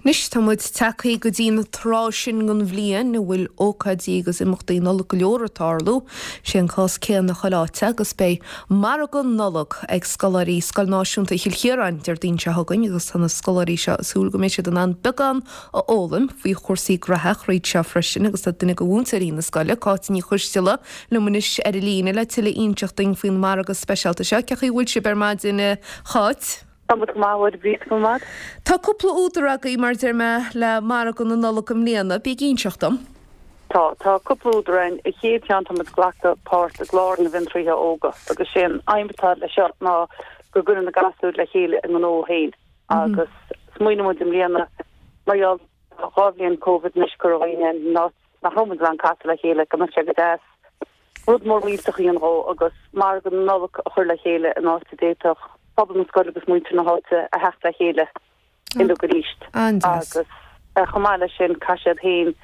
Anois tá muid tagtha go dtí an tráth sin den bhliain a bhfuil ócáidí agus imeachtaí Nollag go leor ag tarlú. Sé an cás céanna chuile áit agus beidh margadh Nollag ag scoláirí Scoil Náisiúnta Chill Chiaráin Déardaoin seo chugainn agus tá na scoláirí seo ag súil go mbeidh siad in ann beagán a fhoghlaim faoi chúrsaí graithe thríd seo freisin agus tá duine de mhúinteoirí na scoile, Cáit Ní Choisteala, liom anois ar an líne le tuilleadh a inseacht duinn faoin margadh speisialta seo. Cén chaoi a bhfuil sibh ar maidin a Cháit? Tá muid go maith, a Mháire Bríd, go maith. Tá cúpla údar agaibh, mar a deir mé, le margadh na Nollag i mbliana. Bí ag inseacht dom. Tá. Tá cúpla údar againn. An chéad cheann, tá muid ag glacadh páirt i gClár na bhFiontraíthe Óga agus sé an aidhm atá leis seo ná go gcuireann na gasúir le chéile a ngnó féin agus smaoinigh muid i mbliana mar gheall ar dhá bhliain Covid anois go raibh daoine in áit nach raibh muid in ann casadh le chéile go mbeadh sé go deas rud mór millteach a dhéanamh dhó agus margadh na Nollag a chur le chéile in áit a d'fhéadfadh pobal na scoile agus muintir na háite a theacht le chéile uilig arís. An-deas. Agus chomh maith leis sin caithfidh siad féin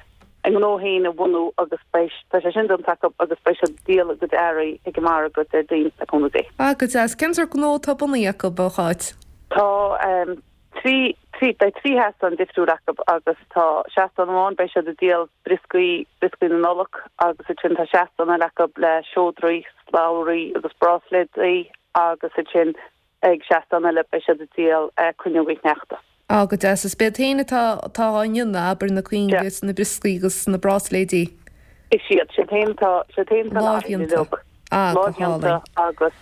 a ngnó féin a bhunú agus beidh, tá sé sin déanta acu agus beidh siad ag díol a gcuid earraí ag an margadh Déardaoin le cúnamh Dé. Ah, go deas. Cén sórt gnó atá bunaithe acu, a Cháit? Tá 3, beidh 3 sheastán difriúil acu agus tá seastán amháin beidh siad ag díol brioscaí, brioscaí na Nollag agus ansin tá seastán eile acu le seodraí, slabhraí agus bráisléadaí agus ansin ag seastán eile beidh siad ag díol cuinneogaí sneachta. Á, go deas. Is b'iad féin atá, atá á ndéanamh, abair, na cuinge is na brioscaí agus na bráisléidí. Is iad, siad féin atá, siad féin atá na Lámhdhéanta. Ah, go hálainn. Lámhdhéanta agus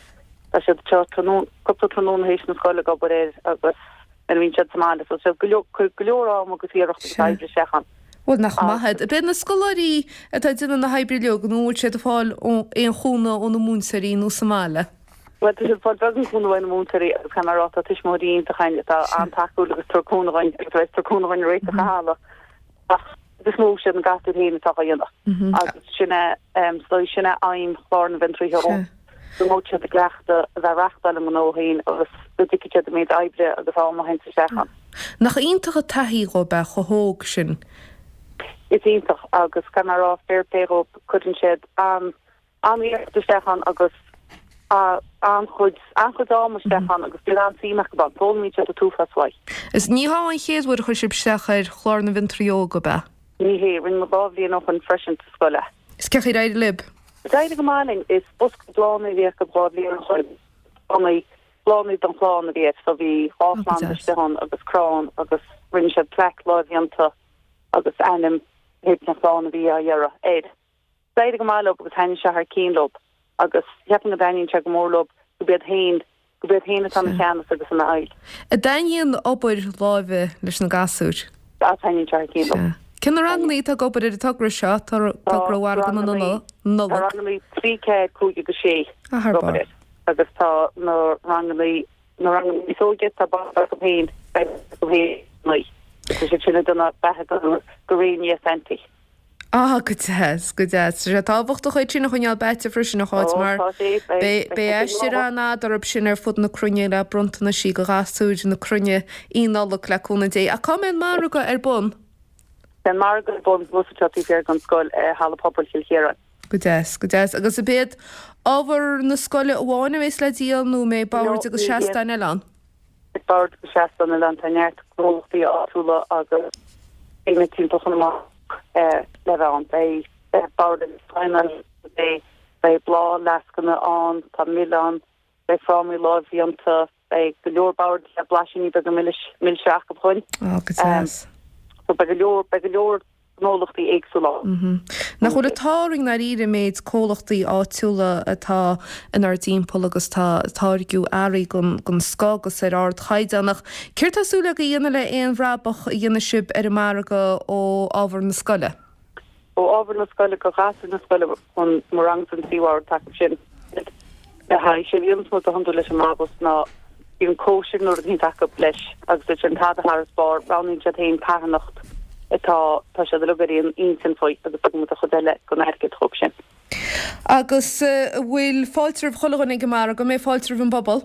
tá siad anseo tráthnóna, cúpla tráthnóna théis na scoile ag obair air agus nuair a bhíonn siad sa mbaile so siad go leor, cuir go leor am agus iarracht agus Sea. oibre isteach ann. Bhuel, nach maith iad. Ab iad na scoláirí atá ag déanamh na hoibre uilig nó an bhfuil siad ag fáil aon chúnamh ó na múinteoirí nó sa mbaile? Bhuel, tá siad ag fáil beagán cúnamh ó na múinteoirí agus caithfidh mé a rá tá tuismitheoirí iontach againn atá an-tacúil agus ag tabhairt cúnamh dhúinn agus a bheas ag tabhairt cúnamh dhúinn réiteach an halla ach is mó siad na gasúir féin atá á dhéanamh agus sin é is dóigh sin é aidhm chlár na bhFiontraíthe Óga go mbeadh siad i gcleachtadh a bheith ag reachtáil a ngnó féin agus go dtuigfidh siad an méid oibre agus am a théanns isteach ann. Nach iontach an taithí dhóibh é chomh hóg sin. Is iontach agus caithfidh mé a rá fair play dhóibh cuireann siad an an-iarracht isteach ann agus an-chuid, an-chuid ama isteach ann agus bíonn an-suim acu ann. Foghlaimíonn siad an t-uafás uaidh. Is ní hé an chéad uair a chuir sibh isteach ar Chlár na bhFiontraí Óga, ab ea? Ní hé, rinne muid 2 bhliain ó shoin freisin sa scoil é. Is cén chaoi ar éirigh libh? D'éirigh go maith linn. Is bosca bláthanna a bhí acu 2 bhliain ó shoin. Bláthanna, bláthanna don chlann a bhí air so bhí 2 Ó, go phlanda deas. istigh ann agus crann agus rinne siad plaic lámhdhéanta agus ainm théid na chlann a bhí á iarraidh air. D'éirigh go maith leo agus thaitnigh sé thar cinn leo agus cheapfainn go dtaitníonn sé go mór leo go b'iad féin, go b'iad féin atá ina cheannas agus ina fheighil. An dtaitníonn obair láimhe leis na gasúir? Sea, taitníonn sé thar cinn leo. Sea. Cé na rangannaí atá ag obair ar an togra seo, togra Mhargadh na Nollag? Tá rangannaí 3, 4, 5 agus 6 Ah, thar ag obair barr. air agus tá na rangannaí, na rangannaí níos óige, tá baint acu féin, baint acu féin, tá siad sin ag déanamh beatha do Réinfhia Santaí. Ah, go deas, go deas. Tá sé tábhachtach iad sin a choinneáil beaite freisin, a Cháit, mar beidh aistear an-fhada orthu sin ar fud na cruinne le bronntanaisí do ghasúir na cruinne í Nollaig, le cúnamh Dé. Ach cá mbeidh an margadh ar bun? Beidh an margadh ar bun thuas anseo taobh thiar den scoil i Halla Pobail Chill Chiaráin. Go deas, go deas. Agus ab iad ábhar na scoile amháin a bheas le díol nó an mbeidh boird agus seastáin eile ann? Beidh boird agus seastáin eile ann, tá neart gnólachtaí áitiúla agus daoine timpeall Chonamara le bheith ann. Beidh boird agus seastáin ann, beidh bláthfhleascanna ann, tá mil ann, beidh frámaí lámhdhéanta, beidh go leor boird le blaisíní beaga milis, milse acu chugainn. Á, go deas. So beidh go leor, beidh go leor gnólachtaí éagsúla ann. Nach bhfuil an t-ádh orainn i ndáiríre an méid comhlachtaí áitiúla atá inár dtimpeall agus atá ag táirgiú earraí den scoth agus ar ardchaighdeán. Ach céard tá súil agaibh a dhéanamh le aon bhrabach a dhéanfaidh sibh ar an margadh ó ábhar na scoile? Ó ábhar na scoile go ghasúir na scoile chun mo rangsa an tríú bhord acu sin le haghaidh sé bhíonns muid go hiondúil leis an mbrabús ná bíonn cóisir nó rud éicint acu leis agus ansin tada thar is barr roghnaíonn siad féin carthanacht atá tá siad uilig ar aon intinn faoi agus tugann muid an chuid eile den airgead dhóibh sin. Agus an bhfuil fáilte roimh chuile dhuine ag an margadh? An mbeidh fáilte roimh an bpobal?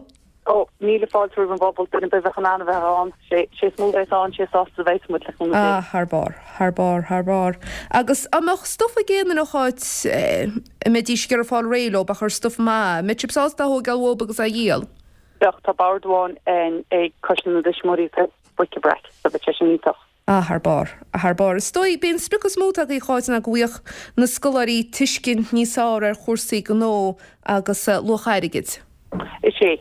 Ó, míle fáilte roimh an bpobal, duine ar bith a bheadh in ann a bheith ann, sé is mó a bheas ann, sé is sásta a bheas muid, le cúnamh Dé. Ah, thar barr, thar barr, thar barr. Agus an mbeadh stuif ag aon duine a Cháit, a mbeidís ag iarraidh fáil réidh leo, ach ar stuif maith, an mbeadh sibh sásta é a thógáil uathub agus é a dhíol? Bheadh, tá bord amháin ag Coiste na dTuismitheoirí atá bric-a-brac, so bheadh sé sin iontach. Ah, thar barr. Thar barr. Is dóigh, b'é an sprioc is mó atá agaibh, a Cháit, ná go bhfaigheadh na scoláirí tuiscint níos fearr ar chúrsaí gnó agus luach airgid. Is é.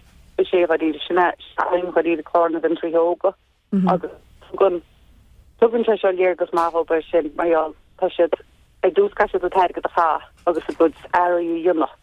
Is é, dháiríre. Sin é aidhm dháiríre Clár na bhFiontraithe Óga agus tugann, tugann sé seo léargas maith dhóibh air sin mar gheall, tá siad, ar dtús caithfidh siad an t-airgead a chaitheamh agus a gcuid earraí a dhéanamh.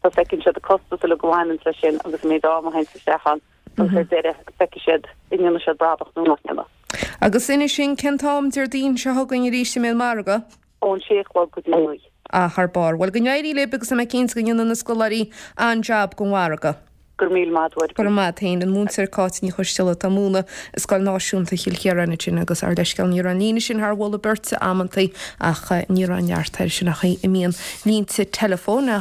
So feiceann siad an costas uilig a bhaineanns leis sin agus an méid ama a théanns isteach ann agus ar deireadh feicfidh siad an ndéanfaidh siad brabach nó nach ndéanfaidh. Agus inis dúinn cén t-am Déardaoin seo chugainn arís a mbeidh an margadh? Ón sé a chlog go dtí a naoi. Ah, thar barr. Bhuel, go n-éirí libh agus tá mé cinnte go ndéanfaidh na scoláirí an-jab den mhargadh. Go raibh míle maith agat. Go raibh maith agat féin. An múinteoir Cáit Ní Choisteala atá ag múineadh i Scoil Náisiúnta Chill Chiaráin ansin agus ár leithscéal ní raibh an líne sin thar mholadh beirte amantaí ach ní raibh neart air sin an chaoi a mbíonn línte teileafóin.